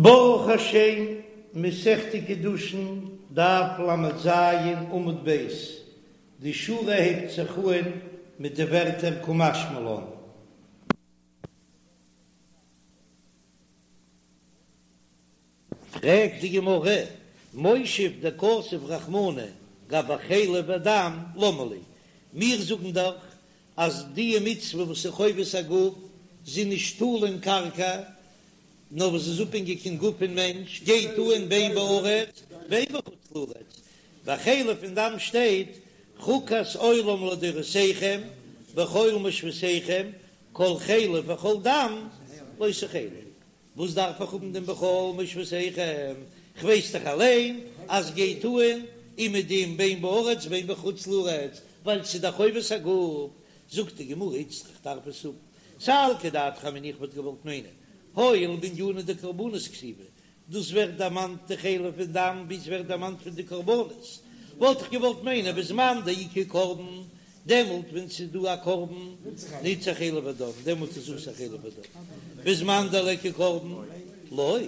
ברוך השם, מסכת קידושין, דף ל"ז, עמוד ב', די שורה הייבט זיך אהן מיט די ווערטער קא משמע לן. פרעגט די גמרא, מושב דכתב רחמנא גבי חלב ודם למה לי, מיר זאגן דאך אז די מצוה וואס איז חובת הגוף, זי נישט תלוי אין קרקע, נאר וואס איז אפהענגיק אין גוף פון מענטש, גייט אן בין בארץ בין בחוץ לארץ, ביי חלב און דם שטייט חוקת עולם לדורותיכם בכל מושבותיכם כל חלב וכל דם לא תאכלו, וואס דארף איך האבן דעם בכל מושבותיכם, כ'ווייס דאך אליין אז גייט אן אומעדום בין בארץ בין בחוץ לארץ, ווייל ס'איז דאך חובת הגוף, זאגט די גמרא איצטריך דארף עס האבן, סלקא דעתך אמינא איך וואלט געוואלט מיינען הואיל בענינא דקרבנות כתיבי, דאס ווערט דערמאנט די חלב און דם ווי עס ווערט דערמאנט פון די קרבנות, וואלט איך געוואלט מיינען בזמן דאיכא קרבן, דעמאלט ווען ס'איז דא א קרבן נצרך חלב ודם, דעמאלט איז אסור חלב ודם, בזמן דליכא קרבן לא,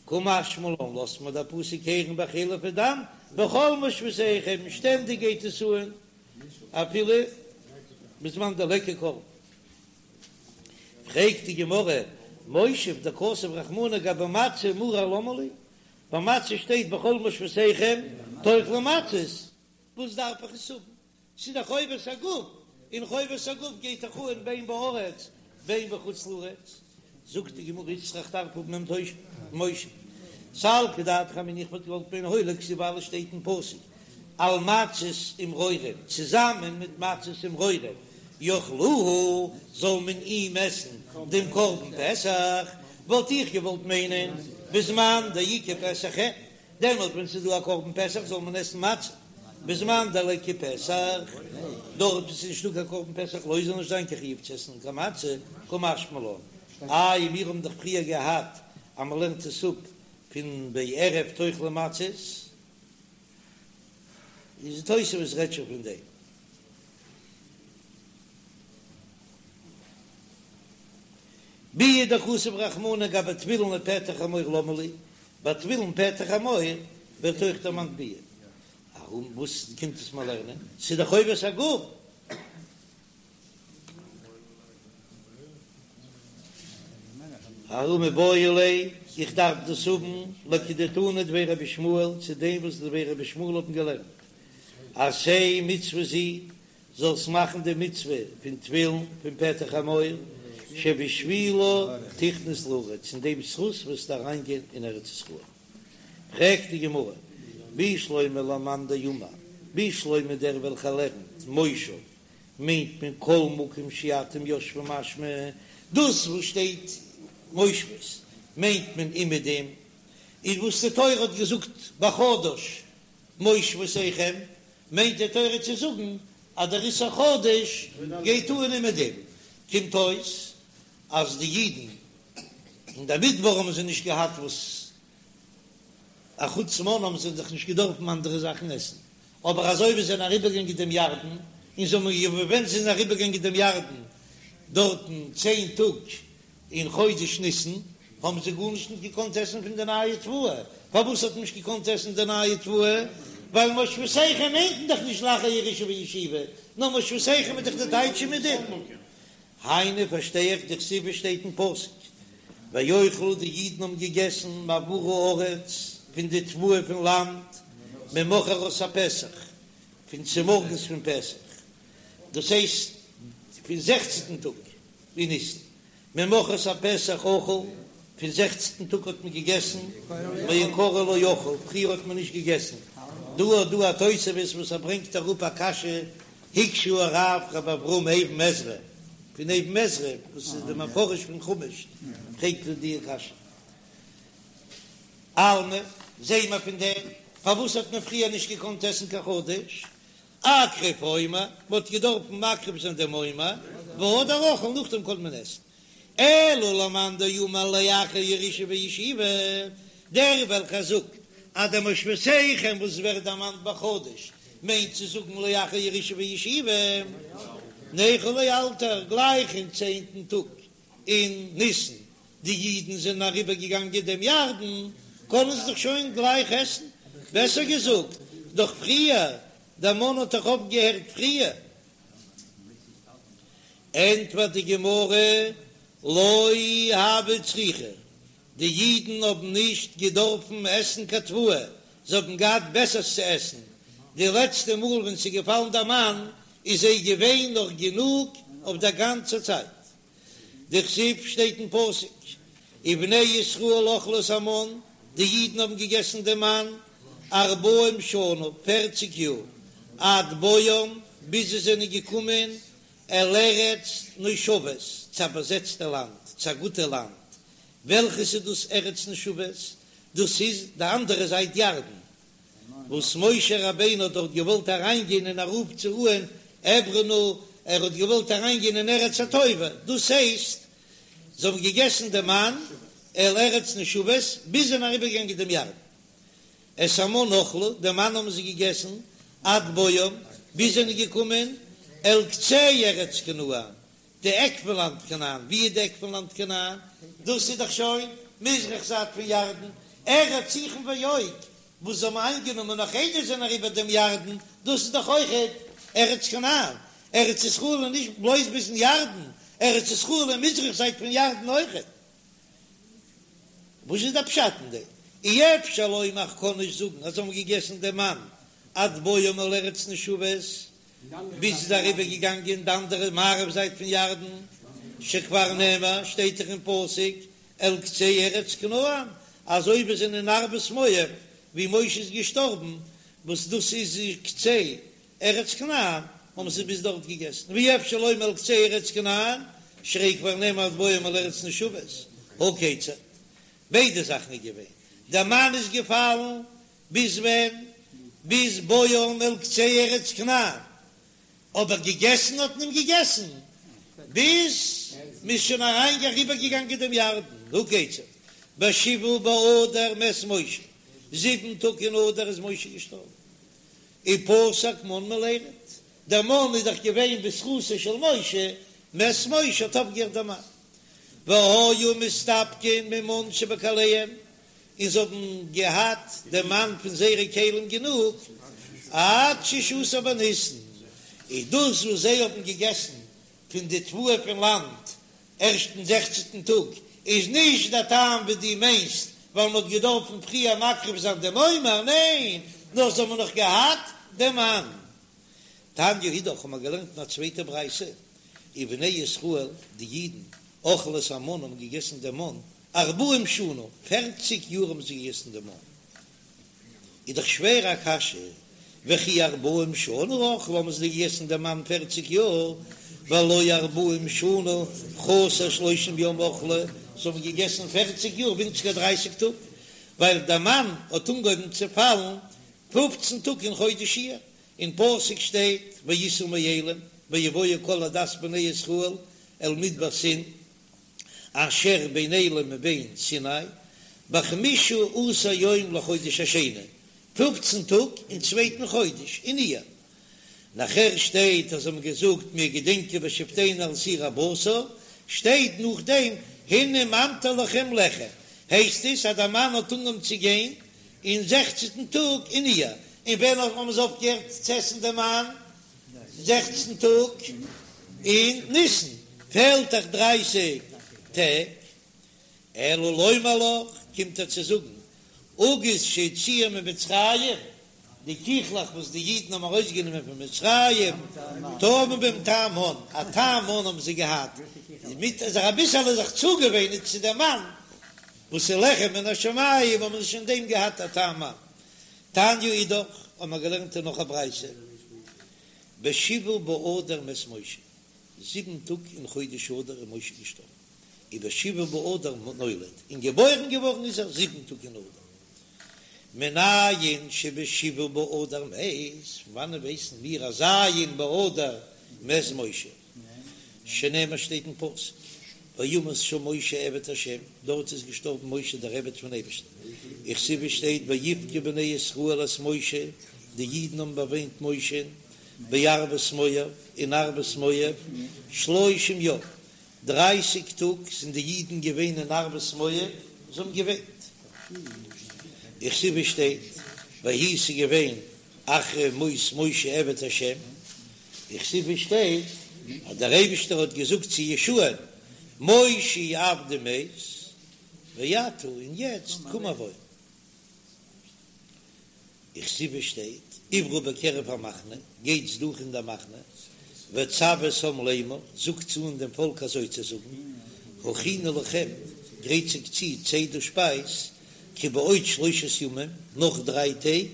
קא משמע לן לאזט מיר דער פסוק הערן ביי חלב ודם בכל מושבותיכם, שטענדיג גייט עס אן אפילו בזמן דליכא קרבן. פרעגט די גמרא, מושב דכתב רחמנא גבי מצה ומרור למה לי? ביי מצה שטייט בכל מושבותיכם תאכלו מצות, וואס דארף איך עס האבן? ס'איז דאך חובת הגוף, און חובת הגוף גייט דאך אן בין בארץ בין בחוץ לארץ. זאגט די גמרא איצטריך דארף האבן דעם מושב. סלקא דעתך אמינא איך וואלט געוואלט מיינען הואיל וכתיב ווייל עס שטייט אין פסוק על מצות ומרורים צוזאמען מיט מצות ומרורים יאכלוהו זאל מען אים עסן דעם קרבן פסח, וואלט איך געוואלט מיינען בזמן דאיכא פסח אין, דעמאלט ווען ס'איז דא א קרבן פסח זאל מען עסן מצה, בזמן דליכא פסח, דארט וואו ס'איז נישטא קיין קרבן פסח לא זאל נישט זיין קיין חיוב צו עסן קיין מצה, קא משמע לן, איי מיר האבן דאך פריער געהאט אז מ'לערנט עס אפ פון בערב תאכלו מצות, איז תוספות רעדט שוין פון דעם. ביאה דכתב רחמנא גבי תפילין ופטר חמור למה לי, ביי תפילין פטר חמור ווערט אויך דערמאנט ביאה. ארום וואס קומט עס מיר לערנען? ס'איז דאך חובת הגוף. ההוא מיבעי ליה, איך דארף דאס האבן לכדתנא דבי רבי ישמעאל, צו דעם וואס דבי רבי ישמעאל האבן געלערנט, עשה מצוה זו, זאלסט מאכן די מצוה פון תפילין פון פטר חמור, שבשבילה תכנס לארץ, אין דעם זכות וועסטו אריינגיין אין ארץ ישראל. פרעגט די גמרא, בשלמא למאן דאמר, בשלמא דער וועלכער לערנט מושב מיינט מען כל מקום שאתם יושבים משמע, דאס וואס שטייט מושבות מיינט מען אומעדום, איז וואס די תורה האט געזאגט בחדש מושבותיכם, מיינט די תורה צו זאגן אז דער איסור חדש גייט אן אומעדום, קומט אויס אז די אידן אין די מדבר האבן זיי נישט געהאט וואס א חוץ מן האבן זיי דאך נישט געדארפן אנדערע זאכן עסן, אבער אזוי ווי זיי זענען אריבערגעגאנגען דעם ירדן, און זיי האבן ווען זיי זענען אריבערגעגאנגען דעם ירדן דארטן צען טאג אין חודש ניסן, האבן זיי גארנישט נישט געקאנט עסן פון די נייע תבואה, פארוואס האט מען נישט געקאנט עסן די נייע תבואה? ווייל מושבותיכם מיינט מען דאך נישט לאחר ירושה וישיבה, נאר מושבותיכם איז דאך די טייטש אומעדום. היינו פארשטיי איך דכתיב שטייט אין פסוק ויאכלו די אידן האבן געגעסן מעבור הארץ פון די תבואה פון לאנד ממחרת הפסח פון צומארגנס פון פסח דאס הייסט פון זעכצנטן טאג אין ניסן ממחרת הפסח אכלו פון זעכצנטן טאג האט מען געגעסן מעיקרא לא אכלו פריער האט מען נישט געגעסן דא האט דא א תוספות וואס ער ברענגט אראפ א קשיא הקשה הרב רבי אברהם אבן עזרא פון אבן עזרא וואס איז די מפרש פון חומש פרעגט ער די קשיא אלמא זעהן מיר פון דעם פארוואס האט מען פריער נישט געקאנט עסן קיין חדש אקריב עומר מען האט געדארפן מקריב זיין דעם עומר והדר אכיל נאכדעם קען מען עסן אלא למאן דאמר לאחר ירושה וישיבה, דער וועלכער זאגט אז דער מושבותיכם וואס ווערט דערמאנט בחדש מיינט צו זאגן לאחר ירושה וישיבה, ניכול לאלתר, גלייך אין צענטן טאג אין ניסן. די אידן זענען אריבער געגאנגען דעם ירדן, קענען זיי דאך שוין גלייך עסן, בעסער געזאגט, דאך פריער, דער מן האט דאך אויפגעהערט פריער. ענטפערט די גמרא, לא הוו צריכי, די אידן האבן נישט געדארפן עסן קיין תבואה, זיי האבן געהאט בעסערס צו עסן, די לעצטע מאל ווען ס'איז געפאלן דער מן איז זיי געווען נאך גענוג אויף דער גאנצער צייט. דכתיב שטייט אין פסוק, ובני ישראל אכלו את המן, די אידן האבן געגעסן דעם מן ארבעים שנה, פערציג יאר, עד בואם, ביז זיי זענען געקומען אל ארץ נושבת, צו א באזעצטע לאנד, צו א גוטע לאנד, וועלכעס איז דאס ארץ נושבת? דאס איז די אנדערע זייט ירדן, וואס משה רבינו האט דארט געוואלט אריינגיין און ארויפצורוען אעברה נא, ער האט געוואלט אריינגיין אין ארץ הטובה, דאס הייסט זיי האבן געגעסן די מן אל ארץ נושבת ביז זיי זענען אריבערגעגאנגען דעם ירדן. את המן אכלו, די מן האבן זיי געגעסן עד בואם, ביז זיי זענען געקומען אל קצה ארץ כנען, די עק פון לאנד כנען, ווי איז די עק פון לאנד כנען? דאס איז דאך שוין מזרח זייט פון ירדן, ארץ סיחון ועוג, וואס זיי האבן איינגענומען נאך איידער זיי זענען אריבער דעם ירדן, דאס איז דאך אויכעט ארץ כנען, ארץ ישראל איז נישט בלויז ביזן ירדן, ארץ ישראל איז מזרח זייט פון ירדן אויכעט. וואס איז דער פשט אין דעם? אי אפשר לומר איך קען נישט זאגן אז זיי האבן געגעסן דעם מן עד בואם אל ארץ נושבת, ביז ס'איז אריבער געגאנגען די אנדערע מערב זייט פון ירדן, שכבר נאמר, שטייט דאך אין פסוק אל קצה ארץ כנען, אזוי ווי זענען אין ערבות מואב ווי משה איז געשטארבן, וואס דאס איז קצה ארץ כנען, האבן זיי ביז דארט געגעסן, ואי אפשר לומר אל קצה ארץ כנען, שהרי כבר נאמר עד בואם אל ארץ נושבת, הא כיצד, ביידע זאכן איז געווען, דער מן איז געפאלן ביז ווען? ביז בואם אל קצה ארץ כנען, אבער געגעסן האט מען געגעסן ביז מ'איז שוין אריין אריבער געגאנגען דעם ירדן, הא כיצד, בשבעה באדר מת משה, זיבן טאג אין אדר איז משה געשטארבן, ופסק מן מלירד, דער מן איז דאך געווען בזכותו של משה, מת משה האט אויפגעהערט דער מן, והיו מסתפקין ממן שבכליהם, און זיי האבן געהאט דעם מן פון זייערע כלים גענוג עד ששה עשר בניסן, איז דאס וואס זיי האבן געגעסן פון די תבואה פון לאנד ערשט אין זעכצנטן טאג, איז נישט דער טעם ווי דו מיינסט ווייל מען האט געדארפן פריער מקריב זיין דעם עומר, ניין, נאר זיי האבן נאך געהאט דעם מן. תניא אידך האבן מיר געלערנט אין א צווייטע ברייתא, ובני ישראל, די אידן, אכלו את המן האבן געגעסן דעם מן, ארבעים שנה, פערציג יאר האבן זיי געגעסן דעם מן. איז דאך שווער א קשיא, וכי ארבעים שנה אכלו האבן זיי געגעסן דעם מן פערציג יאר, והלא ארבעים שנה חסר שלושים יום אכלו, זיי האבן געגעסן פערציג יאר ווינציגער דרייסיג טאג, ווייל דער מן האט אנגעהויבן צו פאלן פופצן טאג אין חודש אייר, אין פסוק שטייט ויסעו מאילים ויבואו כל עדת בני ישראל אל מדבר סין, אשר בין אילים ובין סיני, בחמשה עשר יום לחודש השני, פופצן טאג אין צווייטן חודש, אין אייר. נאכער שטייט אז זיי האבן געזאגט מיר געדענקען בשבתנו על סיר הבשר, שטייט נאכדעם הנה ממטיר לכם לחם, הייסט עס אז דער מן האט אנגעהויבן צו גיין אין זעכצנטן טאג אין אייר, און ווען האבן זיי אויפגעהערט צו עסן דעם מן? זעכצן טאג אין ניסן פעלט דאך דרייסיג טעג, אלא לומר לך, קומט ער צו זאגן, עוגות שהוציאו ממצרים, די קיכלעך וואס די אידן האבן ארויסגענומען פון מצרים, טעמו בהם טעם מן, א טעם מן האבן זיי געהאט, מיט זיך אביסעלע זיך צוגעוואינען צו דעם מן, וואס איז לחם מן השמים, האבן זיי שוין דעם געהאט א טעם מן. תניא אידך, האבן מיר געלערנט אין נאך א ברייתא, בשבעה באדר מת משה, זיבן טאג אין חודש אדר איז משה געשטארבן, ובשבעה באדר נולד, און געבוירן געווארן איז ער זיבן טאג אין אדר. מנין שבשבעה באדר מת, פון וואנען ווייסן מיר אז ז' באדר מת משה? שנאמר שטייט אין פסוק, וימת שם משה עבד ה', דארט איז געשטארבן משה דער עבד פון אייבערשטן, וכתיב שטייט ויבכו בני ישראל את משה, די אידן האבן באוויינט משה'ן, בערבות מואב, אין ערבות מואב, שלושים יום, דרייסיג טאג זענען די אידן געווען אין ערבות מואב, זיי האבן געוויינט. וכתיב שטייט, ויהי ס'איז געווען אחרי מות משה עבד השם, וכתיב שטייט אז דער אייבישטער האט געזאגט צו יהושע'ן, משה עבדי מת, ועתה און יעצט קום עבור. וכתיב שטייט, עברו בקרב המחנה, גייטס דורך אין דער מחנה, וצוו את העם לאמור, זאגטס אן דעם פאלק אזוי צו זאגן, הכינו לכם, גרייט זיך צו צידה שפייז, כי בעוד שלושת ימים, נאך דריי טעג,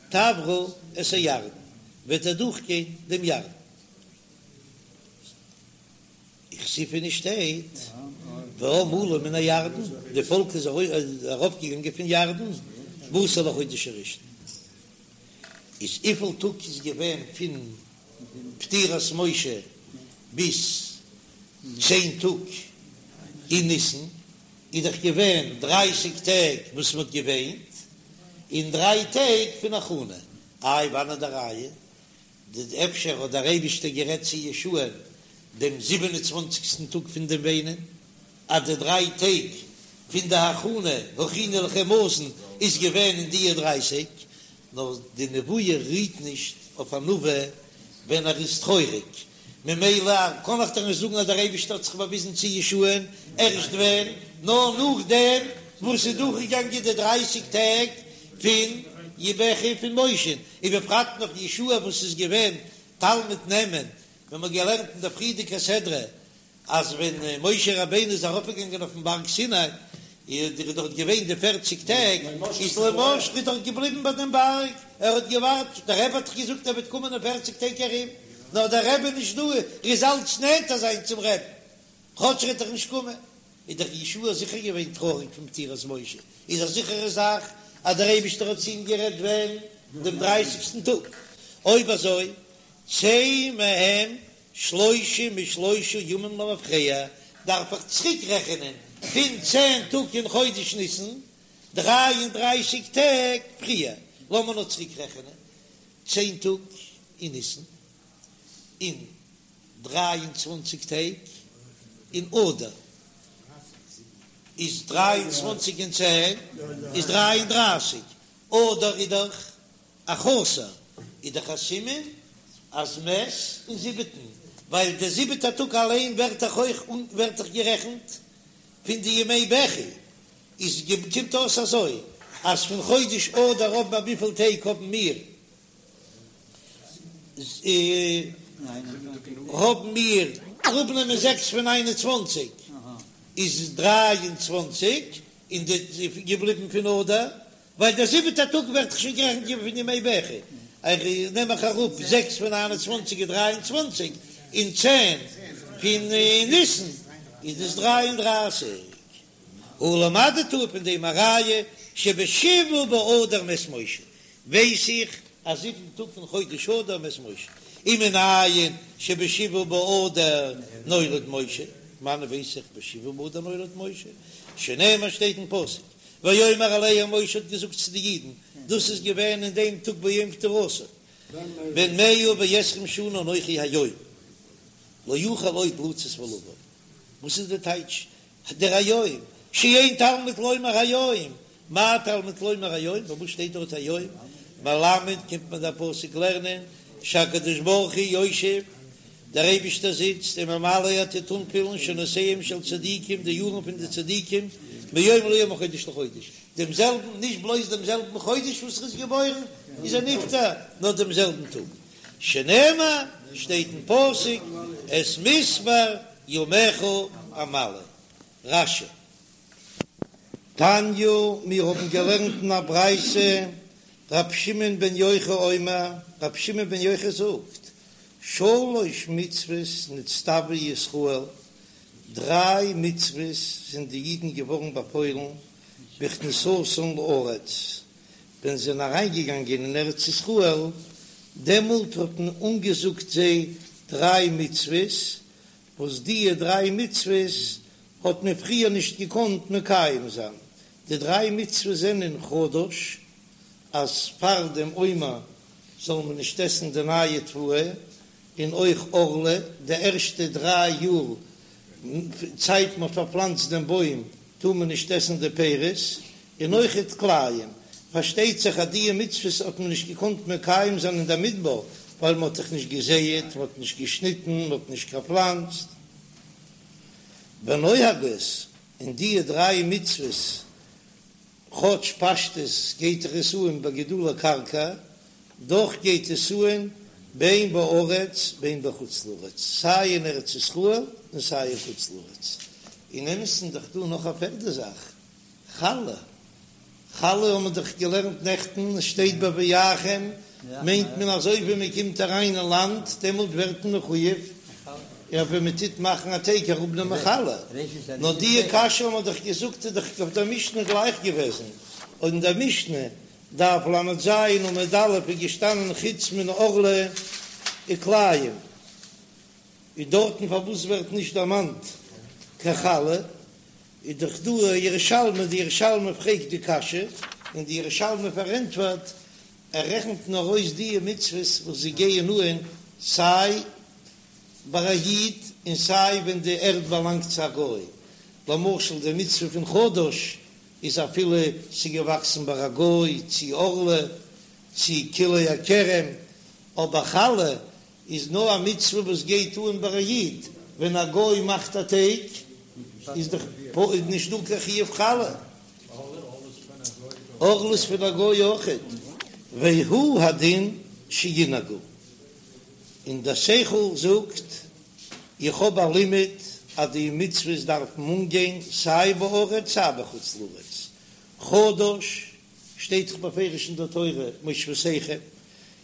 תעברו את הירדן, וועט איר דורכגיין דעם ירדן. וכתיב און ס'שטייט, והעם עלה מן הירדן, די פאלק איז ארויפגעגאנגען פון ירדן, בעשור לחודש הראשון. איז וויפיל טאג איז געווען פון פטירת משה ביז צען טאג אין ניסן? איז דאך געווען דרייסיג טעג וואס מען האט געוויינט, און דריי טעג פון הכנה. איי וואנעט די ראיה? ד אפשר האט דער אייבישטער גערעדט צו יהושע'ן דעם זיבן און צוואנציגסטן טאג פון דעם וויינען, אז די דריי טעג פון די הכנה הכינו לכם מזון איז געווען אין דיע דרייסיג, נאר די נבואה רוהט נישט אויף א נביא ווען ער איז טרויעריג, ממילא קען איך דאך נישט זאגן אז דער אייבישטער האט זיך באוויזן צו יהושע'ן ערשט ווען, נאר נאכדעם וואס ס'איז דורכגעגאנגען די דרייסיג טעג פון בכי פון משה'ן, ובפרט נאך יהושע וואס איז געווען תלמיד נאמן, ווען מ'האט געלערנט אין דער פריערדיגער סדרה אז ווען משה רבינו איז ארויפגעגאנגען אויפן בארג סיני, איז ער דארט געווען די פערציג טעג, איז לא משכו איז דארט געבליבן ביי דעם בארג, ער האט געווארט, דער רבי האט דאך געזאגט ער וועט קומען אין פערציג טעג ארום, נאר דער רבי איז נישט דא, ער איז אלץ נענטער זיין צום רבי'ן, כאטש ער וועט דאך נישט קומען, איז דאך יהושע זיכער געווען טרויעריג פון פטירת משה, איז א זיכערע זאך אז דער אייבישטער האט צו אים גערעדט ווען? דעם דרייסיגסטן טאג, אויב אזוי צא מהם שלושים ושלושה ימים למפרע, דארף איך צוריק רעכענען פון צען טאג אין חודש ניסן, דריי און דרייסיג טעג פריער, לאמיר נאר צוריק רעכענען, צען טאג אין ניסן, און דריי און צוואנציג טעג אין אדר, איז דריי און צוואנציג און צען איז דריי און דרייסיג, אדר איז דאך א חסר איז דאך א סימן אז מת אין זיבעטן, ווייל דער זיבעטער טאג אליין ווערט דאך אויך ווערט דאך גערעכנט פון די ימי בכי, איז קומט אויס אזוי אז פון חודש אדר האבן מיר וויפיל טעג האבן מיר האבן מיר אראפנעמען זעקס פון ניין און צוואנציג איז דריי און צוואנציג און די געבליבן פון אדר ווייל דער זיבעטער טאג ווערט דאך שוין גערעכנט געווען פון ימי בכי, איך נעם איך אראפ זעקס פון ניין און צוואנציג איז דריי און צוואנציג, און צען פון ניסן איז דאס דריי און דרייסיג. הא למדת פון דעם א ראיה שבשבעה באדר מת משה, ווייס איך אז זיבן טאג פון חודש אדר מת משה, ומנין שבשבעה באדר נולד משה, וואנען ווייס איך בשבעה באדר נולד משה, שנאמר שטייט אין פסוק ויאמר אליהם משה האט געזאגט צו די אידן, דאס איז געווען אין דעם טאג ביום פטירתו, בן מאה ועשרים שנה אנכי היום, לא אוכל עוד לצאת ולבוא. וואס איז די טייטש דער היום? שאין תלמוד לומר היום, מה תלמוד לומר היום? פארוואס שטייט דארט היום? מלמד קומט מיר דער פסוק לערנען שהקדוש ברוך הוא יושב, דער אייבישטער זיצט וממלא ער טוט אנפילן שנותיהם של צדיקים די יארן פון די צדיקים מיום ליום מחודש לחודש, דעם זעלבן, נישט בלויז דעם זעלבן חודש וואס ער איז געבוירן איז ער נפטר, נאר דעם זעלבן טאג, שנאמר, שטייט אין פסוק, את מספר ימיך אמלא. רש"י. תניא, מיר האבן געלערנט אין א ברייתא, ר' שמעון בן יוחאי אומר, ר' שמעון בן יוחאי זאגט, שלש מצוות נצטוו ישראל, דריי מצוות זענען די אידן געווארן באפוילן בכניסתן לארץ, ווען זיי זענען אריינגעגאנגען אין ארץ ישראל, דעמאלט האט מען אנגעזאגט זיי דריי מצוות, וואס דיע דריי מצוות האט מען פריער נישט געקאנט מקיים זיין, די דריי מצוות זענען חדש, אז פאר דעם עומר זאל מען נישט עסן די נייע תבואה, און אויך ערלה, די ערשטע דריי יאר. צייט מ'האט פארפלאנצט דעם בוים טאר מען נישט עסן די פירות, און אויכעט כלאים. פארשטייט זיך אז דיע מצוות האט מען נישט געקאנט מקיים זיין אין דער מדבר, ווייל מ'האט דאך נישט געזייעט, מ'האט נישט געשניטן, מ'האט נישט געפלאנצט. ונוהגות, און דיע דריי מצוות כאטש פשטות גייט דאך עס אן ביי גידולי קרקע, דאך גייט עס אן בין בארץ בין בחוץ לארץ, סיי אין ארץ ישראל און סיי אין חוץ לארץ. אין אמת'ן איז דאך דא נאך א פערדע זאך, חלה. חלה האבן מיר דאך געלערנט נעכטן, עס שטייט בבואכם, מיינט מען אזוי ווי מען קומט אריין אין לאנד, דעמאלט ווערט מען מחויב, און ווען מען טוט מאכן א טייג אראפנעמען חלה. נאר דיע קשיא האבן מיר דאך געזאגט איז דאך אויף דער משנה גלייך געוועזן, און אין דער משנה, דף ל"ז עמוד א', איז געשטאנען חוץ מן הערלה וכלאים, איז דארטן פארוואס ווערט נישט דערמאנט קיין חלה? איז דאך דא א ירושלמי, די ירושלמי פרעגט די קשיא, און די ירושלמי פארענטפערט, ער רעכנט נאר אויס די מצוות וואס זיי גייען אהן סיי ביי א איד און סיי ווען די ערד באלאנגט צו א גוי, למשל די מצוה פון חדש איז אפילו ס'איז געוואקסן ביי א גוי, צי ערלה, צי כלאי הכרם, אבער חלה איז נאר א מצוה וואס גייט אן ביי א איד, ווען א גוי מאכט א טייג איז דאך נישט דא קיין חיוב חלה. ערלה איז פון א גוי אויכעט. והוא הדין שינהגו, און דער שכל זאגט, איך האב א לימוד אז די מצוות דארפן אנגיין סיי בארץ סיי בחוץ לארץ, חדש שטייט דאך בפירוש אין דער תורה מושבותיכם,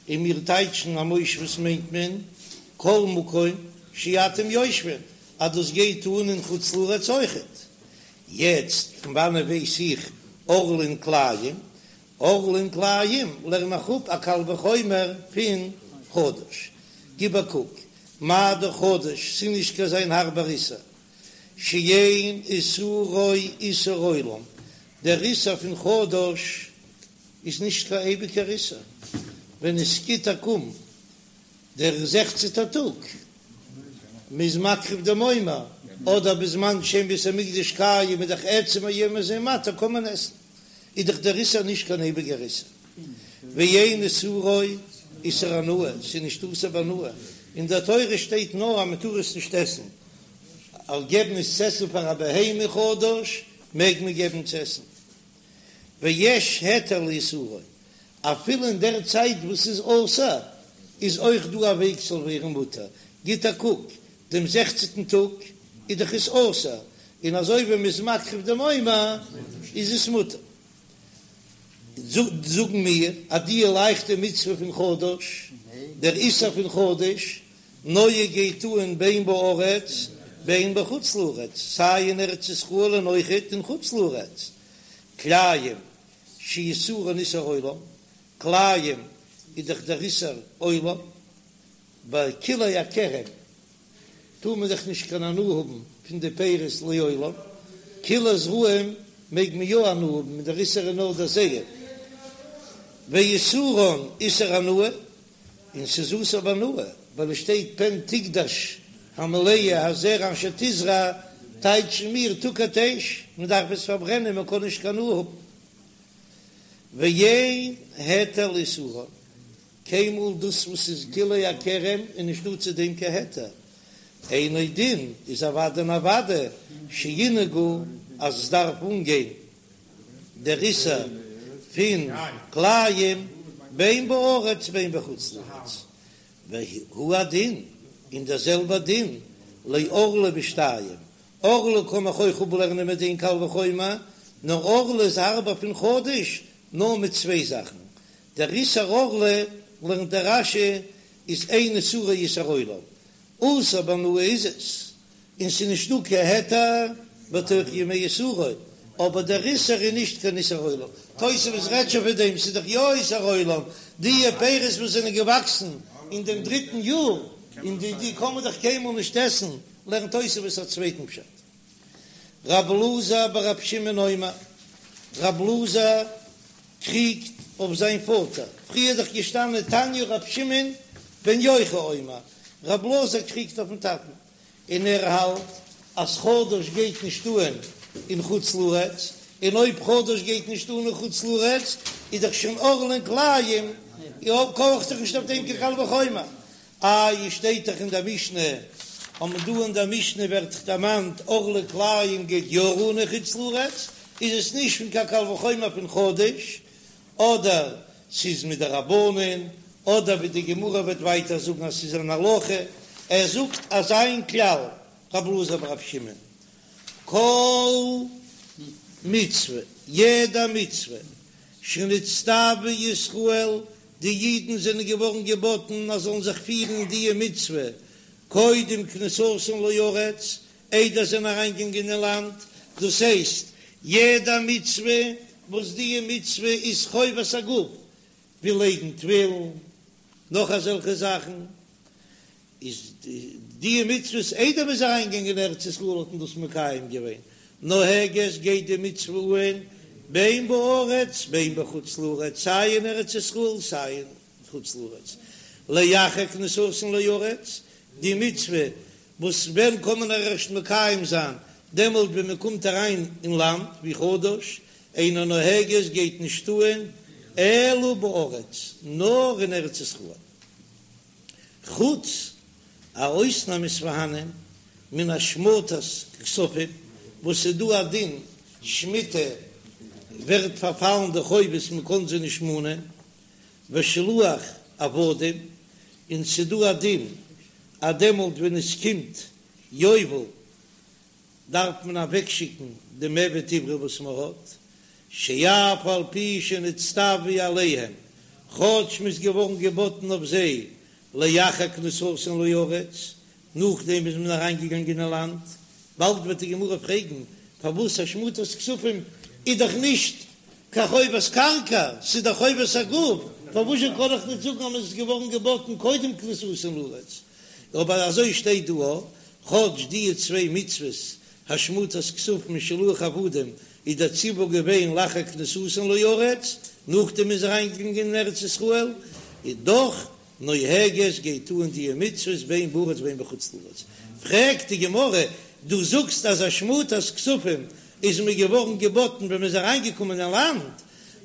און מיר טייטשן א מושבות מיינט מען כל מקום שאתם יושבים, אז דאס גייט אן אין חוץ לארץ אויכעט. יעצט פון וואנען ווייס איך ערלה און כלאים? ערלה און כלאים לערן איך אפ א קל וחומר פון חדש. גיב א קוק, מה דאך חדש, ס'איז נישט קיין אזוין הארבער איסור, שאין איסורו איסור עולם, דער איסור פון חדש איז נישט קיין אייביגער איסור, ווען עס גיט א קום דער זעכצנטער טאג, מ'איז מקריב דעם עומר, אדער בזמן שאין בית המקדש קיים איז דאך עצם היום הזה מותר קען מען עסן, איז דאך דער איסור נישט קיין אייביגער איסור, ואין איסורו איסור הנאה, ס'איז נישט אסור בהנאה, אין דער תורה שטייט נאר אז מ'טאר עס נישט עסן, אבער געבן עס צו עסן פאר א בהמה חדש מעג מען געבן צו עסן, ויש היתר לאיסורו, אפילו אין דער צייט וואס ס'איז אסור איז אויך דא א וועג ס'זאל ווערן מותר, גיט א קוק, דעם זעכצנטן טאג איז דאך עס אסור, און אזוי ווי מ'איז מקריב דעם עומר איז עס מותר. זאגן מיר אז די לייכטע מצוה פון חדש, דער איסור פון חדש, נוהג גייט אן בין בארץ בין בחוץ לארץ, סיי אין ארץ ישראל און אויכעט אין חוץ לארץ, כלאים שאיסורן איסור עולם, כלאים איז דאך דער איסור עולם, ביי כלאי הכרם טאר מען דאך נישט קיין הנאה האבן פון די פירות לעולם, כלאי זרעים מעג מען יא הנאה האבן און דער איסור איז נאר דער זרע, ואיסורן איסור הנאה, און ס'איז אסור בהנאה, ווייל עס שטייט פן תקדש המלאה הזרע אשר תזרע, טייטשן מיר תוקד אש, מען דארף עס פארברענען מען קען נישט קיין הנאה האבן. ואין היתר לאיסורן, קיינמאל דאס וואס איז כלאי הכרם איז נישט דא צו דעם קיין היתר, אינו דין איז אוודאי און אוודאי שינהגו אז עס דארף אנגיין דער איסור פון כלאים בין בארץ בין בחוץ לארץ, והוא הדין, און דער זעלבער דין לערלה בשתיים, ערלה קען איך אויך אפלערנען מיט דעם קל וחומר, נאר ערלה איז הארבער פון חדש נאר מיט צוויי זאכן, דער איסור ערלה לערנט דער רש"י איז אין איסורו איסור עולם, אסור בהנאה איז עס, און ס'איז נישט דא קיין היתר בתוך ימי איסורו, אבער דער איסור איז נישט קיין איסור עולם, תוספות רעדט שוין פון דעם, ס'איז דאך יא איסור עולם, די פירות וואס זענען געוואקסן אין דעם דריטן יאר, און די די קען מען דאך קיינמאל נישט עסן, לערנט תוספות א צווייטן פשט. רב אלעזר ברב שמעון אומר, רב אלעזר קריגט אויף זיין פאטער, פריער איז דאך געשטאנען תניא רב שמעון בן יוחאי אומר, רב אלעזר קריגט אויפן טאטן, און ער האלט. אז חדש גייט נישט אהן אין חוץ לארץ, און אויב חדש גייט נישט אהן אין חוץ לארץ איז דאך שוין ערלה און כלאים, קאך איך זיך נישט אויף דעם קיין קל וחומר. איי שטייט דאך אין דער משנה, און דא אין דער משנה ווערט דאך דערמאנט ערלה כלאים גייט יא אן אין חוץ לארץ, איז עס נישט פון קיין קל וחומר פון חדש, אדער ס'איז מדרבנן, אדער ווי די גמרא וועט ווייטער זאגן אז ס'איז אן הלכה, ער זאגט אזא כלל, רב אלעזר ברב שמעון, כל מצוה, יעדע מצוה, שנצטוו ישראל, די אידן זענען געווארן געבאטן אז זאלן זיך פירן די מצוה קודם כניסתן לארץ, איידער זיי זענען אריינגעגאנגען אין לאנד, דאס הייסט, יעדע מצוה וואס די מצוה איז חובת הגוף, ווי לייגן תפילין, נאך אזעלכע זאכן, איז די מצוות איידער מ'איז אריינגעגאנגען אין ארץ ישראל האט מען דאס מקיים געווען, נוהגת גייט די מצוה אהן בין בארץ בין בחוץ לארץ, סיי אין ארץ ישראל סיי אין חוץ לארץ, לאחר כניסתן לארץ, די מצוה וואס ווען קען מען ערשט מקיים זיין, דעמאלט ווען מען קומט אריין אין לאנד, ווי חדש, אינה נוהגת גייט נישט אהן אלא בארץ, נאר אין ארץ ישראל. חוץ א אויסנאם איז פארהאנען מן השמטת כספים וואס איז דא א דין שמיטה ווערט פארפאלן די חובות מען קען זיי נישט מאנען ושילוח עבדים און ס'איז דא א דין אז דעמאלט ווען עס קומט יובל דארף מען אוועקשיקן דעם עבד עברי וואס מען האט, שאף על פי שנצטוו עליהם, כאטש מ'איז געווארן געבאטן אויף זיי לאחר כניסתן לארץ, נאכדעם איז מען אריינגעגאנגען אין לאנד, באלד וועט די גמרא פרעגן פארוואס השמטת כספים איז דאך נישט קיין חובת קרקע, ס'איז דאך חובת הגוף, פארוואזשע קען איך נישט זאגן אז מ'איז געווארן געבאטן קודם כניסתן לארץ? אבער אזוי שטייט דא א, כאטש די צוויי מצוות השמטת כספים און שילוח עבדים איז דער ציווי געווען לאחר כניסתן לארץ, נאכדעם מ'איז אריינגעגאנגען אין ארץ ישראל, איז דאך נוהגת גייט אן די מצוות בין בארץ בין בחוץ לארץ. פרעגט די גמרא, דו זאגסט אז השמטת כספים איז מען געווארן געבאטן ווען מען איז אריינגעקומען אין לאנד,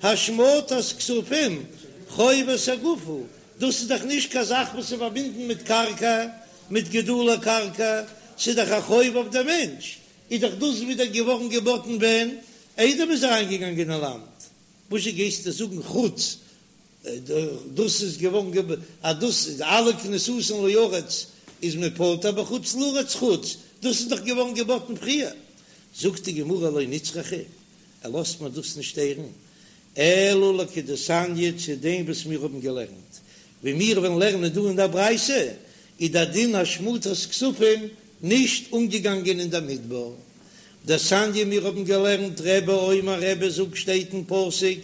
השמטת כספים חובת הגוף הוא, דאס איז דאך נישט קיין זאך וואס איז פארבינדן מיט קרקע, מיט גידולי קרקע, ס'איז דאך א חוב אויף דעם מענטש, איז דאך דאס ווידער געווארן געבאטן ווען איידער מ'איז אריינגעגאנגען אין לאנד, וואזשע גייסטו זאגן חוץ דאס איז געווארן אז דאס איז אלע כניסתן לארץ איז מען פטור בחוץ לארץ חוץ דאס איז דאך געווארן געבאטן פריער, זאגט די גמרא לא נצרכא, ער לאזט מיר דאס נישט הערן, אלא לכדתניא צו דעם וואס מיר האבן געלערנט, ווי מיר וועלן לערנען דא אין דער ברייתא, איז דער דין השמטת כספים נישט אנגעגאנגען אין דער מדבר. דתניא מיר האבן געלערנט רבי אומר רבי זאגט שטייט אין פסוק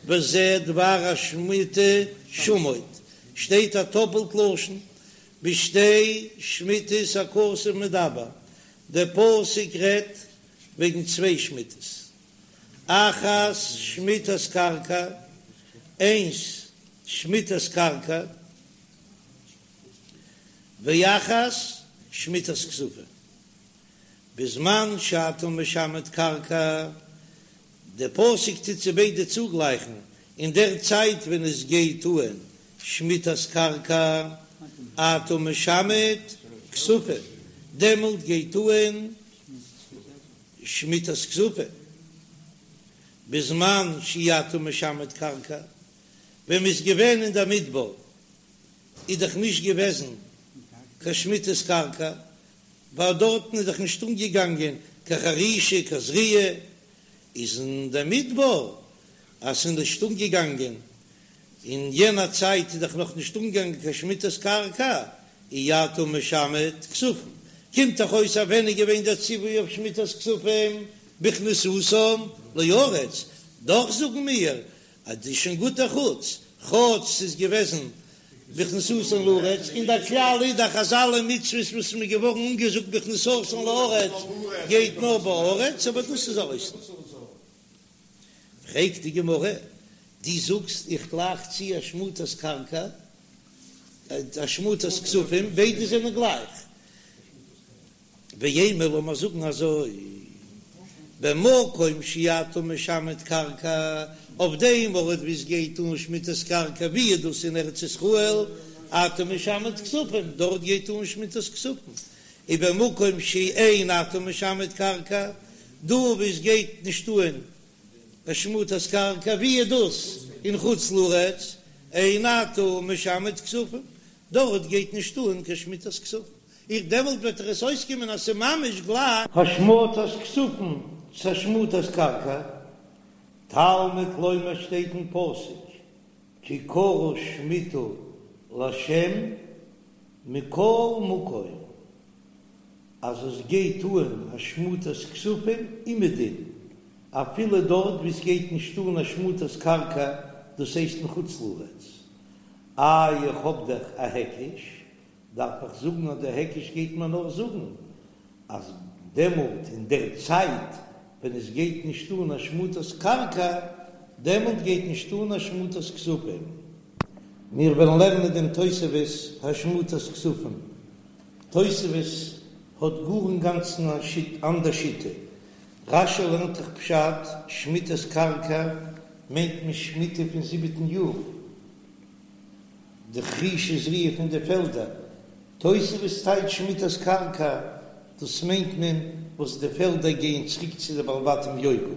וזה דבר השמיטה שמוט שטייט א טאפלט לשון בשתי שמיטות הכתוב מדבר דער פסוק רעדט וועגן צוויי שמיטות אחת שמיטת קרקע, איינס שמיטת קרקע, ואחת שמיטת כספים. בזמן שאתה משמט קרקע, דער פסוק טוט זיי ביידע צוגלייכן, אין דער צייט ווען עס גייט אהן שמיטת קרקע, אתה משמט כספים, דעמאלט גייט אהן שמיטת כספים, בזמן שאי אתה משמט קרקע, ווען מ'איז געווען אין דער מדבר איז דאך נישט געוועזן קיין שמיטת קרקע, ווייל דארטן איז דאך נישט אנגעגאנגען קיין חרישה קיין זריעה, איז אין דער מדבר אז ס'איז נישט אנגעגאנגען אין יענע צייט איז דאך נאך נישט אנגעגאנגען קיין שמיטת קרקע, אי אתה משמט כספים, קומט דאך אויס אז ווען איז געווען דער ציווי אויף שמיטת כספים בכניסתם לארץ, דאך זאגן מיר אז דאס איז שוין גוט א חוץ, כאטש ס'איז געוועזן בכניסתן לארץ, און דער כלל איז דאך אז אלע מצוות וואס מ'איז געווארן אנגעזאגט בכניסתן לארץ גייט נאר בארץ, אבער דאס איז א אויסנאם. פרעגט די גמרא, דו זאגסט איך גלייך צו השמטת קרקע, השמטת כספים, ביידע זענען גלייך. ואימא לאמיר זאגן אזוי, במקום שאתה משמט קרקע, אויף דעם ארט וואו עס גייט אן שמיטת קרקע ווי איז דאס אין ארץ ישראל, אתה משמט כספים, דארט גייט אן שמיטת כספים, ובמקום שאין אתה משמט קרקע, דא וואו עס גייט נישט אן השמטת קרקע ווי איז דאס אין חוץ לארץ, אין אתה משמט כספים, דארט גייט נישט אן קיין שמיטת כספים, איך דעמאלט וועט דאך עס אויסקומען אז ס'איז ממש גלייך. השמטת כספים צו השמטת קרקע, תלמוד לומר שטייט אין פסוק כי קרא שמיטה לה' מכל מקום אז עס גייט אן השמטת כספים אומעדום אפילו דארט וואו עס גייט נישט אן השמטת קרקע דאס הייסט אין חוץ לארץ, איי איך האב דאך א היקש דארף איך זאגן אז דער היקש גייט מיר נאר זאגן אז דעמאלט אין דער צייט ווען עס גייט נישט אן השמטת קרקע דעמאלט גייט נישט אן השמטת כספים. מיר וועלן לערנען דעם תוספות השמטת כספים. תוספות האט גאר אינגאנצן א אנדער שיטה. רש"י לערנט דאך פשט, שמיטת קרקע מיינט מען שמיטה פון זיבעטן יאר. די חרישה וזריעה פון די פעלדער. תוספות טייטשט שמיטת קרקע, דאס מיינט מען וואס די פעלדער גייען צוריק צו די בעלי בתים יובל.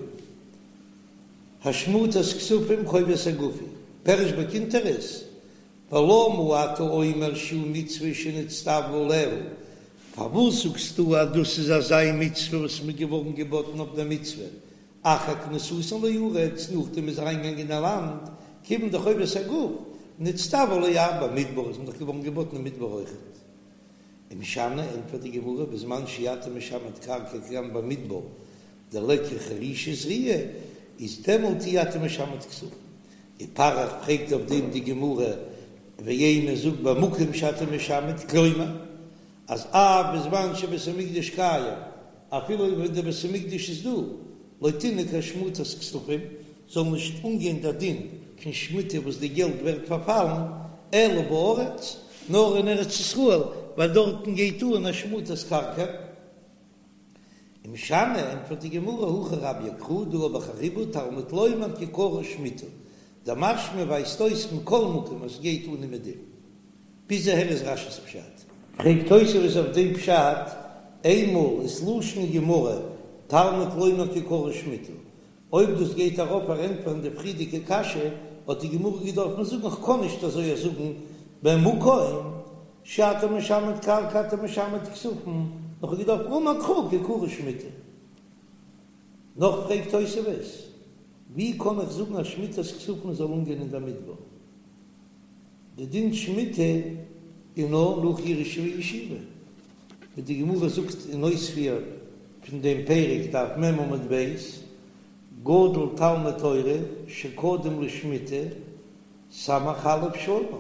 השמטת כספים חובת הגוף היא, פירש בקונטרס, ולמה אתה אומר שהוא מצוה שנצטוו עליה, פארוואס זאגסטו אז דאס איז אזא מצוה וואס מ'איז געווארן געבאטן אויף דער מצוה, אחר כניסתן לארץ, נאכדעם מ'איז אריינגעגאנגען אין לאנד, כיוון דחובת הגוף, נצטוו עליה במדבר, איז מען דאך געווארן געבאטן אין מדבר אויכעט. ומשני, ענטפערט די גמרא, בזמן שאתה משמט קרקע כגון במדבר, דליכא חרישה וזריעה, איז דעמאלט אי אתה משמט כספים. ופריך פרעגט אויף דעם די גמרא, ואימא זאג במקום שאתה משמט, כלומר, אז אף בזמן שבית המקדש קיים, אפילו ווען דער בית המקדש איז דא, לא תנהג השמטת כספים, זאל נישט אנגיין דער דין פון שמיטה וואס די געלט ווערט פארפאלן, אלא בארץ, נאר אין ארץ ישראל, ווייל דארטן גייט אן השמטת קרקע. ומשני, ענטפערט די גמרא, הכא רביה קרא, דא האב איך א ריבוי, תלמוד לומר כי קרא שמיטה, דמשמע ווייזט אויס מכל מקום אז ס'גייט אן אומעדום. ביז אהער איז רש"י'ס פשט. פרעגט תוספות אויף דעם פשט, איינמאל איז לשון גמרא תלמוד לומר כי קרא שמיטה, אויב דאס גייט ארויף פארענטפערן די פריערדיגע קשיא, האט די גמרא געדארפן זאגן איך קען נישט אזוי זאגן במקום שאתה משמט קרקע אתה משמט כספים, נאר כ'האב געדארפט אמר קרא כי קרא שמיטה. נאך פרעגט תוספות, ווי קען איך זאגן אז שמיטת כספים זאל אנגיין אין דער מדבר? די דין שמיטה איז נאר נאך ירושה וישיבה, ווי די גמרא זאגט אין אויספיר פון דעם פרק דף מ עמוד ב', גדול תלמוד תורה שקדם לשמיטה סמך א' שנה,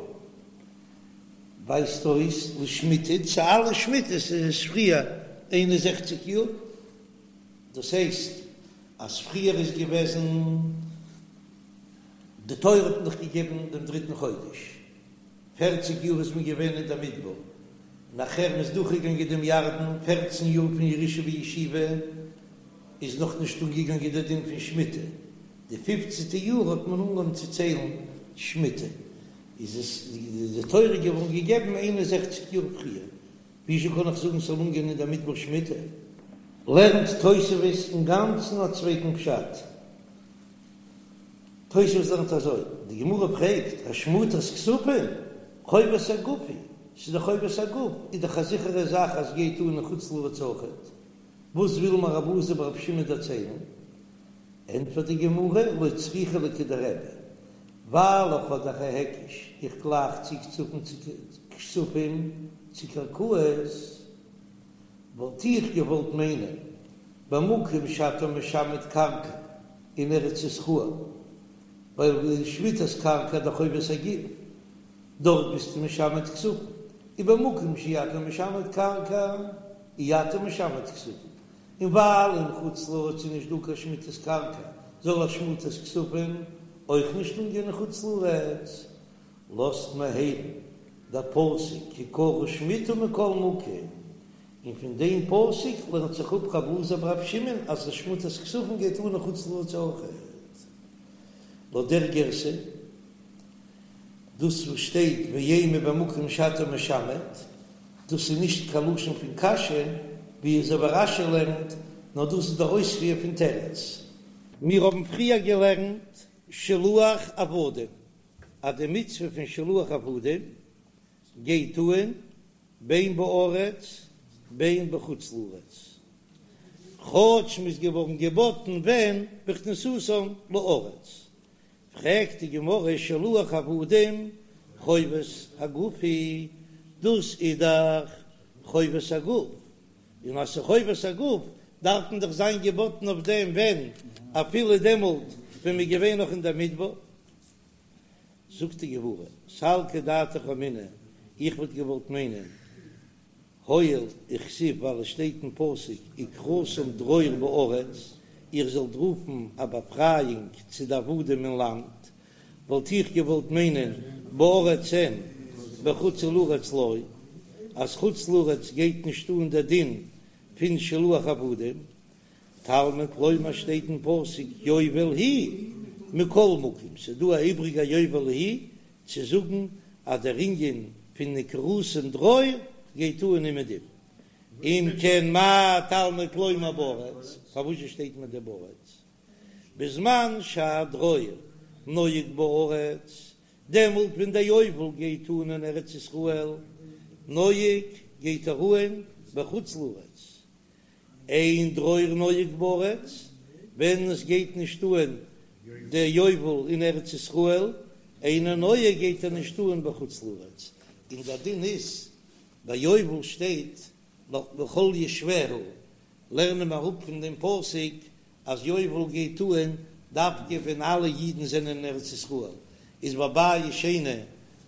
ווייזט אויס לשמיטה צו אלע שמיטות איז עס פריער 61 יאר, דאס הייסט אז פריער איז געוועזן. די תורה האט מען דאך געגעבן דעם דריטן חודש, פערציג יאר איז מען געווען אין דער מדבר, נאכער מען איז דורכגעגאנגען דעם ירדן, פערצן יאר פון ירושה וישיבה איז נאך נישט אנגעגאנגען דער דין פון שמיטה, די פופצנטע יאר האט מען אנגעהויבן צו ציילן שמיטה, איז עס די תורה געווארן געגעבן 61 יאר פריער, וויאזוי קען איך זאגן ס'זאל אנגיין אין דער מדבר שמיטה? לערנט תוספות אינגאנצן א צווייטן פשט. תוספות לערנט אזוי, די גמרא פרעגט, השמטת כספים, חובת הגוף היא, ס'איז דאך חובת הגוף, איז דאך א זיכערע זאך אז גייט אן אין חוץ לארץ אויכעט, וואס וויל מיר רב אלעזר ברבי שמעון דערציילן? ענטפערט די גמרא, לא צריכא לכדרבי, ווייל איך האב דאך א היקש, איך גלייך צו כספים צו קרקעות, וואלט איך געוואלט מיינען במקום שאתה משמט קרקע אין ארץ ישראל, ווייל שמיטת קרקע דאך חובת הגוף, דארט ביסטו משמט כספים, ובמקום שאי אתה משמט קרקע אי אתה משמט כספים, און ווייל אין חוץ לארץ איז נישט דא קיין שמיטת קרקע זאל השמטת כספים אויך נישט אנגיין אין חוץ לארץ, לאזט מיר הערן דער פסוק כי קרא שמיטה מכל מקום. און פון דעם פסוק לערנט זיך אפ רב אלעזר ברבי שמעון אז די שמוטת כספים גייט אן אין חוץ לארץ אויכעט. לויט דער גירסא, דאס וואס שטייט ואימא במקום שאתה משמט, דאס איז נישט קיין לשון פון קשיא, ווי אזוי ווי רש"י לערנט, נאר דאס איז דער אויספיר פון תירוץ. מיר האבן פריער געלערנט שילוח עבדים, אז די מצוה פון שילוח עבדים גייט אן בין בארץ בין בחוץ לארץ, כאטש מ'איז געווארן געבאטן ווען בכניסתם לארץ. פרעגט די גמרא שילוח עבדים חובת הגוף היא, דאס איז דאך חובת הגוף, און אז ס'איז חובת הגוף דארף מען דאך זיין געבאטן אויף דעם ווען אפילו דעמאלט ווען מ'איז געווען נאך אין דער מדבר. זאגט די גמרא, סלקא דעתך אמינא, איך וואלט געוואלט מיינען, הואיל וכתיב ווייל עס שטייט אין פסוק וקראתם דרור בארץ, איר זאלט רופן א באפרייאונג צו די עבדים אין לאנד, וואלט איך געוואלט מיינען בארץ אין בחוץ לארץ לא, אז חוץ לארץ גייט נישט אן דער דין פון שילוח עבדים, תלמוד לומר שטייט אין פסוק יובל היא מכל מקום, ס'איז דא א איבריגע יובל היא צו זאגן אז דער ענין פון וקראתם דרור גייט אן אומעדום. אם כן מה תלמוד לומר בארץ, פארוואס שטייט מיר דער בארץ? בזמן שהדרור נוהג בארץ, דעמאלט ווען דער יובל גייט אן אין ארץ ישראל, נוהג גייט ער אן בחוץ לארץ, אין דרור נוהג בארץ, ווען עס גייט נישט אן דער יובל אין ארץ ישראל, אינו נוהג גייט ער נישט אן בחוץ לארץ, און דער דין איז ביי יובל שטייט נאך לכל יושביה, לערנען מיר אראפ פון דעם פסוק אז יובל גייט אן דווקא ווען אלע אידן זענען אין ארץ ישראל, איז ביי בית שני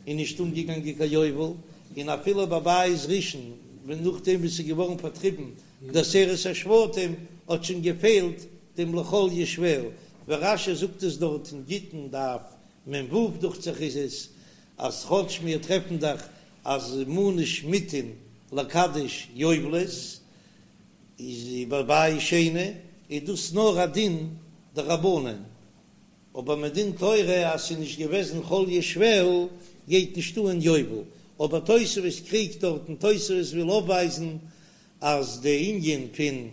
איז נישט אנגעגאנגען קיין יובל, און אפילו ביי בית ראשון ווען נאכדעם וואס ס'איז געווארן פארטריבן די עשרת השבטים האט שוין געפעלט דעם לכל יושביה, ווי רש"י זאגט עס דארט אין גיטין דף מ"ו דוכט זיך איז עס, אז כאטש מיר טרעפן דאך אז מנו שמיטין לקדש יובלות, איז ביי בית שני איז דאס נאר א דין דרבנן, אבער מדין תורה אז ס'איז נישט געוועזן כל יושביה גייט נישט אן יובל, אבער תוספות קריגט דארט און תוספות וויל אויפווייזן אז די ענין פון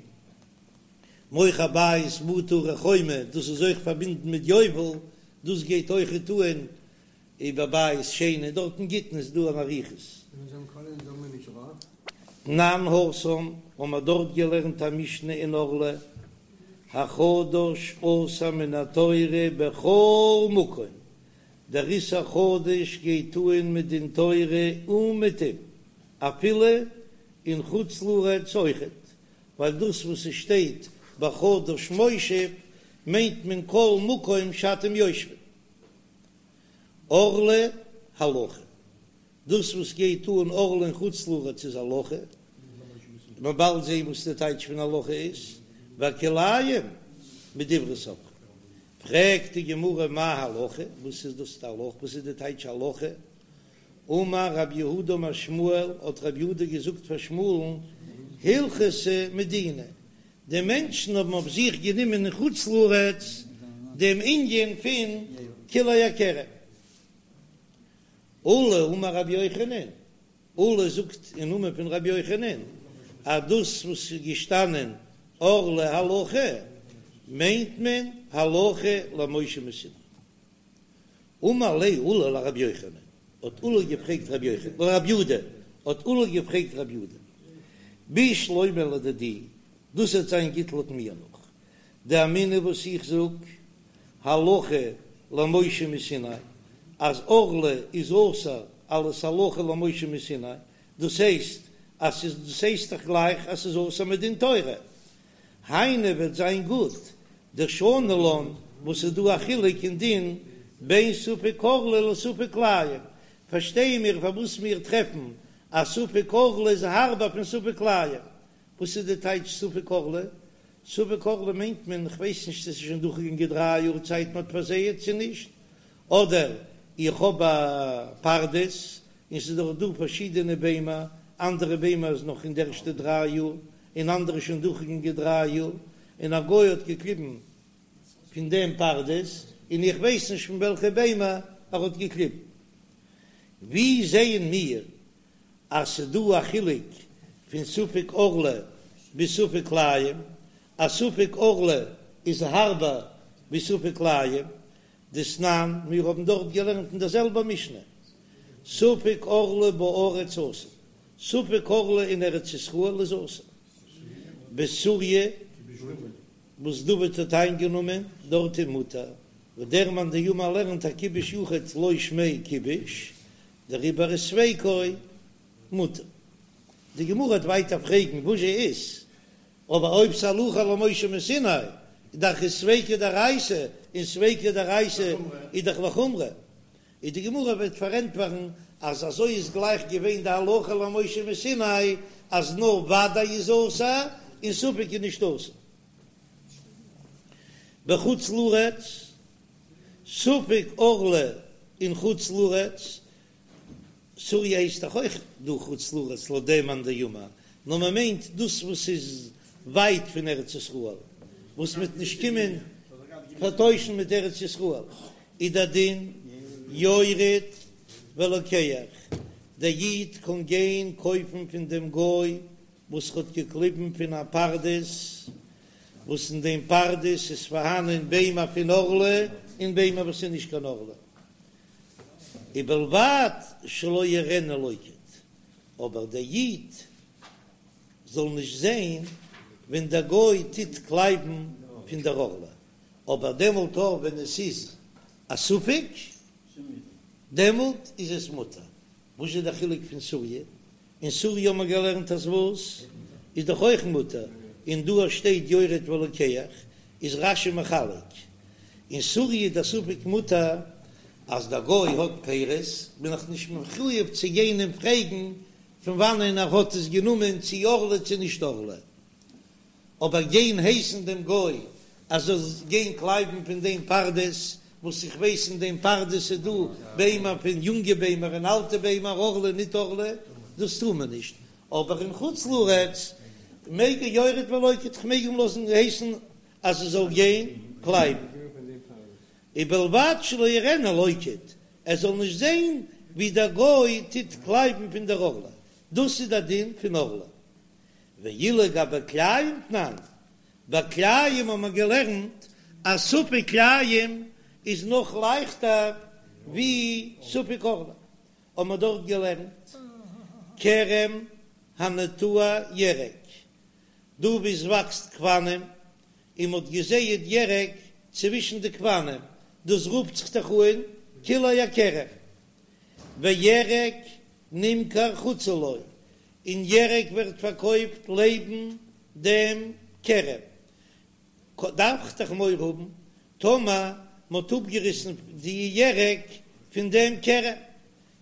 מוכר בית בתי ערי חומה דאס איז אויך פארבינדן מיט יובל, דאס גייט אויכעט אן איבער בית שני, דארט אין גיטין איז דא אן אריכות. תנן התם, האבן מיר דארט געלערנט א משנה אין ערלה, החדש אסור מן התורה בכל מקום, דער איסור חדש גייט אן מדין תורה אומעטום, אפילו אין חוץ לארץ אויכעט, ווייל דאס וואס עס שטייט בחדש מושב מיינט מען כל מקום שאתם יושבים. ערלה הלכה, דאס וואס גייט אן ערלה אין חוץ לארץ איז הלכה, מ'וועט באלד זעהן וואס די טייטש פון הלכה איז, והכלאים מדברי סופרים. פרעגט די גמרא מאי הלכה, וואס איז דאס די הלכה, וואס איז די טייטש הלכה? אמר רב יהודה אמר שמואל, האט רב יהודה געזאגט פאר שמואל'ן, הלכתא מדינה, די מענטשן האבן אויף זיך גענומען אין חוץ לארץ דעם ענין פון כלאי הכרם. עולא אמר רבי יוחנן, עולא זאגט אין נאמען פון רבי יוחנן, אז דאס וואס איז געשטאנען ערלה הלכה, מיינט מען הלכה למשה מסיני. אמר ליה עולא לרבי יוחנן, האט עולא געפרעגט רבי יוחנן, לרב יהודה, האט עולא געפרעגט רב יהודה, בשלמא לדידי, דאס וועט זיין גוט לויט מיר נאך דאמינא וואס איך זאג, הלכה למשה מסיני, אז ערלה איז אסור אלס הלכה למשה מסיני, דאס הייסט אז ס'איז דאס הייסט דאך גלייך אז ס'איז אסור מדין תורה, היינו וועט זיין גוט דשני לן וואס איז דא א חילוק אין דין בין ספק ערלה לספק כלאים, פארשטייען מיר פארוואס מיר טרעפן אז ספק ערלה איז הארבער פון ספק כלאים, וואס איז די טייטש ספק ערלה? ספק ערלה מיינט מען כ'ווייס נישט צו ס'איז שוין דורכגעגאנגען דריי יאר צייט מ'האט פארזייעט צו נישט, אדער איך האב א פרדס און ס'איז דאך דא פארשידענע ביימער. אנדערע ביימער איז נאך אין די ערשטע דריי יאר, און אנדערע שוין דורכגעגאנגען דריי יאר, און א גוי האט געקליבן פון דעם פרדס, און איך ווייס נישט פון וועלכע ביימער ער האט געקליבן. ווי זעען מיר אז ס'דא א חילוק פון ספק ערלה ביז ספק כלאים? אז ספק ערלה איז הארבער ווי ספק כלאים, דתנן, מיר האבן דארט געלערנט אין דער זעלבער משנה, ספק ערלה בארץ אסור, ספק ערלה אין ארץ ישראל איז אסור, בסוריא וואס דוד האט איינגענומען דארט איז מותר, וואס דער מאן דאמר לערנט אז כיבוש יחיד לא שמיה כיבוש, דעריבער איז ספיקו מותר. די גמרא וועט ווייטער פרעגן וואס זשע איז, אבער אויב ס'הלכה למשה מסיני איז דאך איז ספיקא דאורייתא, און ספיקא דאורייתא איז דאך לחומרא, איז די גמרא וועט פארענטפערן אז אזוי איז גלייך געווען די הלכה למשה מסיני אז נאר ודאי איז אסור און ספק איז נישט אסור. בחוץ לארץ, ספק ערלה אין חוץ לארץ, סוריא הייסט דאך אויך דא חוץ לארץ לויט דעם מאן דאמר, נאר מען מיינט דאס וואס איז ווייט פון ארץ ישראל, וואס מ'וועט נישט קומען פארטוישן מיט ארץ ישראל, איז דער דין יורד ולוקח, דער איד קען גיין קויפן פון דעם גוי וואס האט געקליבן פון א פרדס, וואס אין דעם פרדס איז פארהאנען ביימער פון ערלה און ביימער וואס איז נישט קיין ערלה. ובלבד שלא יראנו לוקט, אבער דער איד זאל נישט זען ווען דער גוי טוט קלייבן פון דער ערלה, אבער דעמאלט אויך ווען עס איז א ספק, דעמאלט איז עס מותר. וואס איז דער חילוק פון סוריא? אין סוריא האט מען געלערנט אז וואס איז דאך אויך מותר, און דא שטייט יורד ולוקח, איז רש"י מחלק, אין סוריא איז דער ספק מותר, אז דער גוי האט פירות בין איך נישט מחויב צו גיין אים פרעגן פון וואנען ער האט עס גענומען צו ערלה צו נישט ערלה, אבער גיין הייסן דעם גוי אז זאל גיין קלייבן פון דעם פרדס, וואס איך ווייס אין דעם פרדס איז דא ביימער פון יונגע ביימער און אלטע ביימער ערלה ניט ערלה, דאס טאר מען נישט, אבער אין חוץ לארץ מעג ער יורד ולוקט, כ'מעג אים לאזן הייסן אז ער זאל גיין קלייבן, ובלבד שלא יראנו לוקט, ער זאל נישט זען ווי דער גוי טוט קלייבן פון דער ערלה, דאס איז דער דין פון ערלה. ואילו גבי כלאים תנן, ביי כלאים האט מען געלערנט אז ספק כלאים איז נאך לייכטער ווי ספק ערלה, האט מען דארט געלערנט כרם הנטוע ירק, דא וואו עס וואקסט גפנים און מען האט געזייט ירק צווישן די גפנים, דאס רופט זיך דאך אן כלאי הכרם, וירק נמכר חוצה לו, און ירק ווערט פארקויפט לעבן דעם כרם, דארף איך דאך מורא האבן טאמער מ'האט אפגעריסן די ירק פון דעם כרם,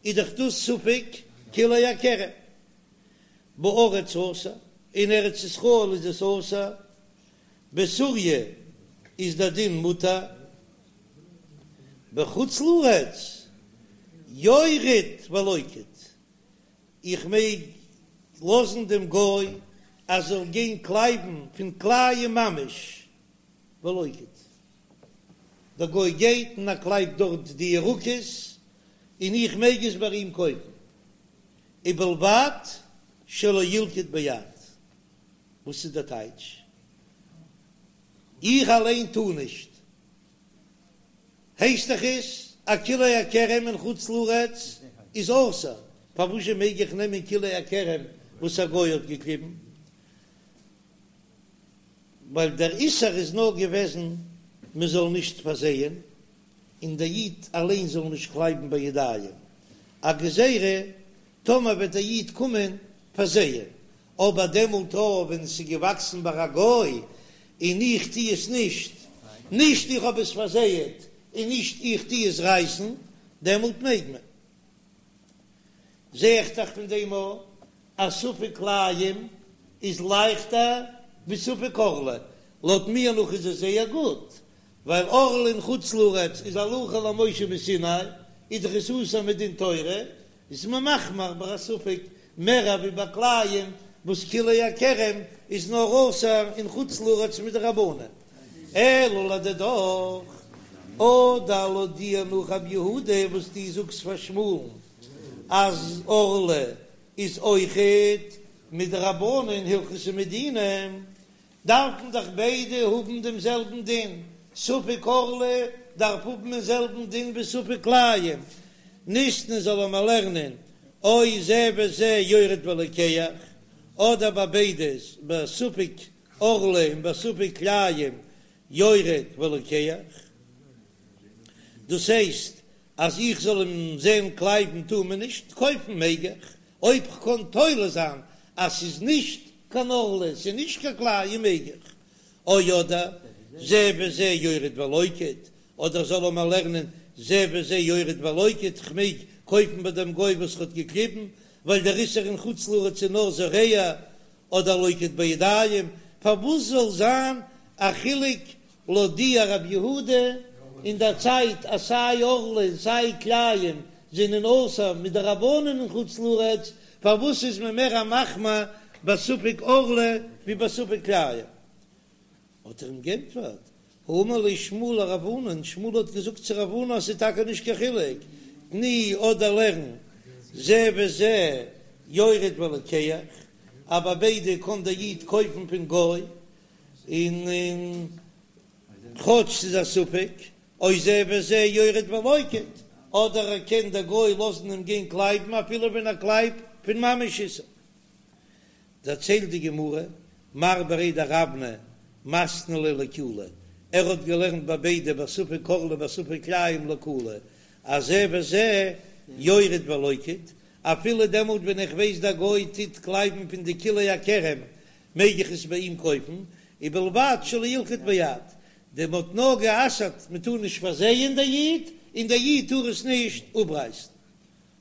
איז דאך דאס ספק כלאי הכרם. בארץ אסור, אין ארץ ישראל איז עס אסור, בסוריא איז דער דין מותר, בחוץ לארץ יורד ולוקט, איך מעג לאזן דעם גוי אז זאל גיין קלייבן פון כלאים ממש ולוקט, דער גוי גייט און ער קלייבט דארט די ירקות און איך מעג עס ביי אים קויפן, ובלבד שלא ילקוט ביד, וואס איז דער טייטש? איך אליין טאר נישט הייסט דאך עס אז כלאי הכרם אין חוץ לארץ איז אסור, פארוואזשע מעג איך נעמען כלאי הכרם וואס א גוי האט געקליבן? ווייל דער איסור איז נאר געוועזן מען זאל נישט פארזייען, און דער איד אליין זאל נישט קלייבן בידיים, א גזירה טאמער וועט דער איד קומען פארזייען, אבער דעמאלט אויך ווען עס איז געוואקסן ביי א גוי און איך טו עס נישט, נישט איך האב עס פארזייעט און נישט איך טו עס רייסן, דעמאלט מעג מען. זע איך דאך פון דעם אויך אז ספק כלאים איז לייכטער ווי ספק ערלה, לויט מיר נאך איז עס זייער גוט, ווייל ערלה אין חוץ לארץ איז הלכה למשה מסיני, איז דאך עס אסור מדין תורה, איז מען מחמיר ביי א ספק. מער ווי ביי כלאים וואס כלאי הכרם איז נאר אסור אין חוץ לארץ מדרבנן. אלא לדידך, אדער לויט דיר נאך רב יהודה וואס דו זאגסט פאר שמואל'ן אז ערלה איז אויכעט מדרבנן הלכתא מדינה, דארפן דאך ביידע האבן דעם זעלבן דין, ספק ערלה דארף האבן דעם זעלבן דין ווי ספק כלאים, ניתני זאל מען לערנען או זה וזה יורד ולוקח, אדער ביי ביידע ביי ספק ערלה און ביי ספק כלאים יורד ולוקח, דאס הייסט אז איך זאל אים זען קלייבן טאר מען נישט, קויפן מעג איך, אויב כ'קען תולה זיין אז ס'איז נישט קיין ערלה, ס'איז נישט קיין כלאים מעג איך, או אדער זה וזה יורד ולוקט, אדער זאל מען לערנען זה וזה יורד ולוקט, כ'מעג קויפן ביי דעם גוי וואס ר'האט געקליבן, ווייל דער איסור אין חוץ לארץ איז נאר זורע, אדער לוקט בידיים, פארוואס זאל זיין א חילוק לויט דיר רב יהודה אין דער צייט אז סיי ערלה און סיי כלאים זענען אסור מדרבנן אין חוץ לארץ, פארוואס איז מען מער א מחמיר בספק ערלה ווי בספק כלאים? האט ער אים גענטפערט, האמר ליה שמואל לרב ענן, שמואל האט געזאגט צו רב ענן אז ס'איז טאקע נישט קיין חילוק, תני אדער לערן זה וזה יורד ולוקח, אז ביי ביידע קען דער איד קויפן פון גוי, און כאטש ס'איז א ספק, או זה וזה יורד ולוקט, אדער ער קען דער גוי לאזן אים גיין קלייבן אפילו ווען ער קלייבט פון ממש איסור. דערציילט די גמרא, מר בריה דרבנא מתני ליה לקולא, ער האט געלערנט ביי ביידע בספק ערלה בספק כלאים לקולא, אז זה וזה יורד ולוקט, אפילו דעמאלט ווען איך ווייס דער גוי טוט קלייבן פון די כלאי הכרם מעג איך עס ביי אים קויפן, ובלבד שלא ילקוט ביד, דעם האט נאר גע'אסר'ט מען טאר נישט פארזייען דער איד, און דער איד טאר עס נישט אפרייסן.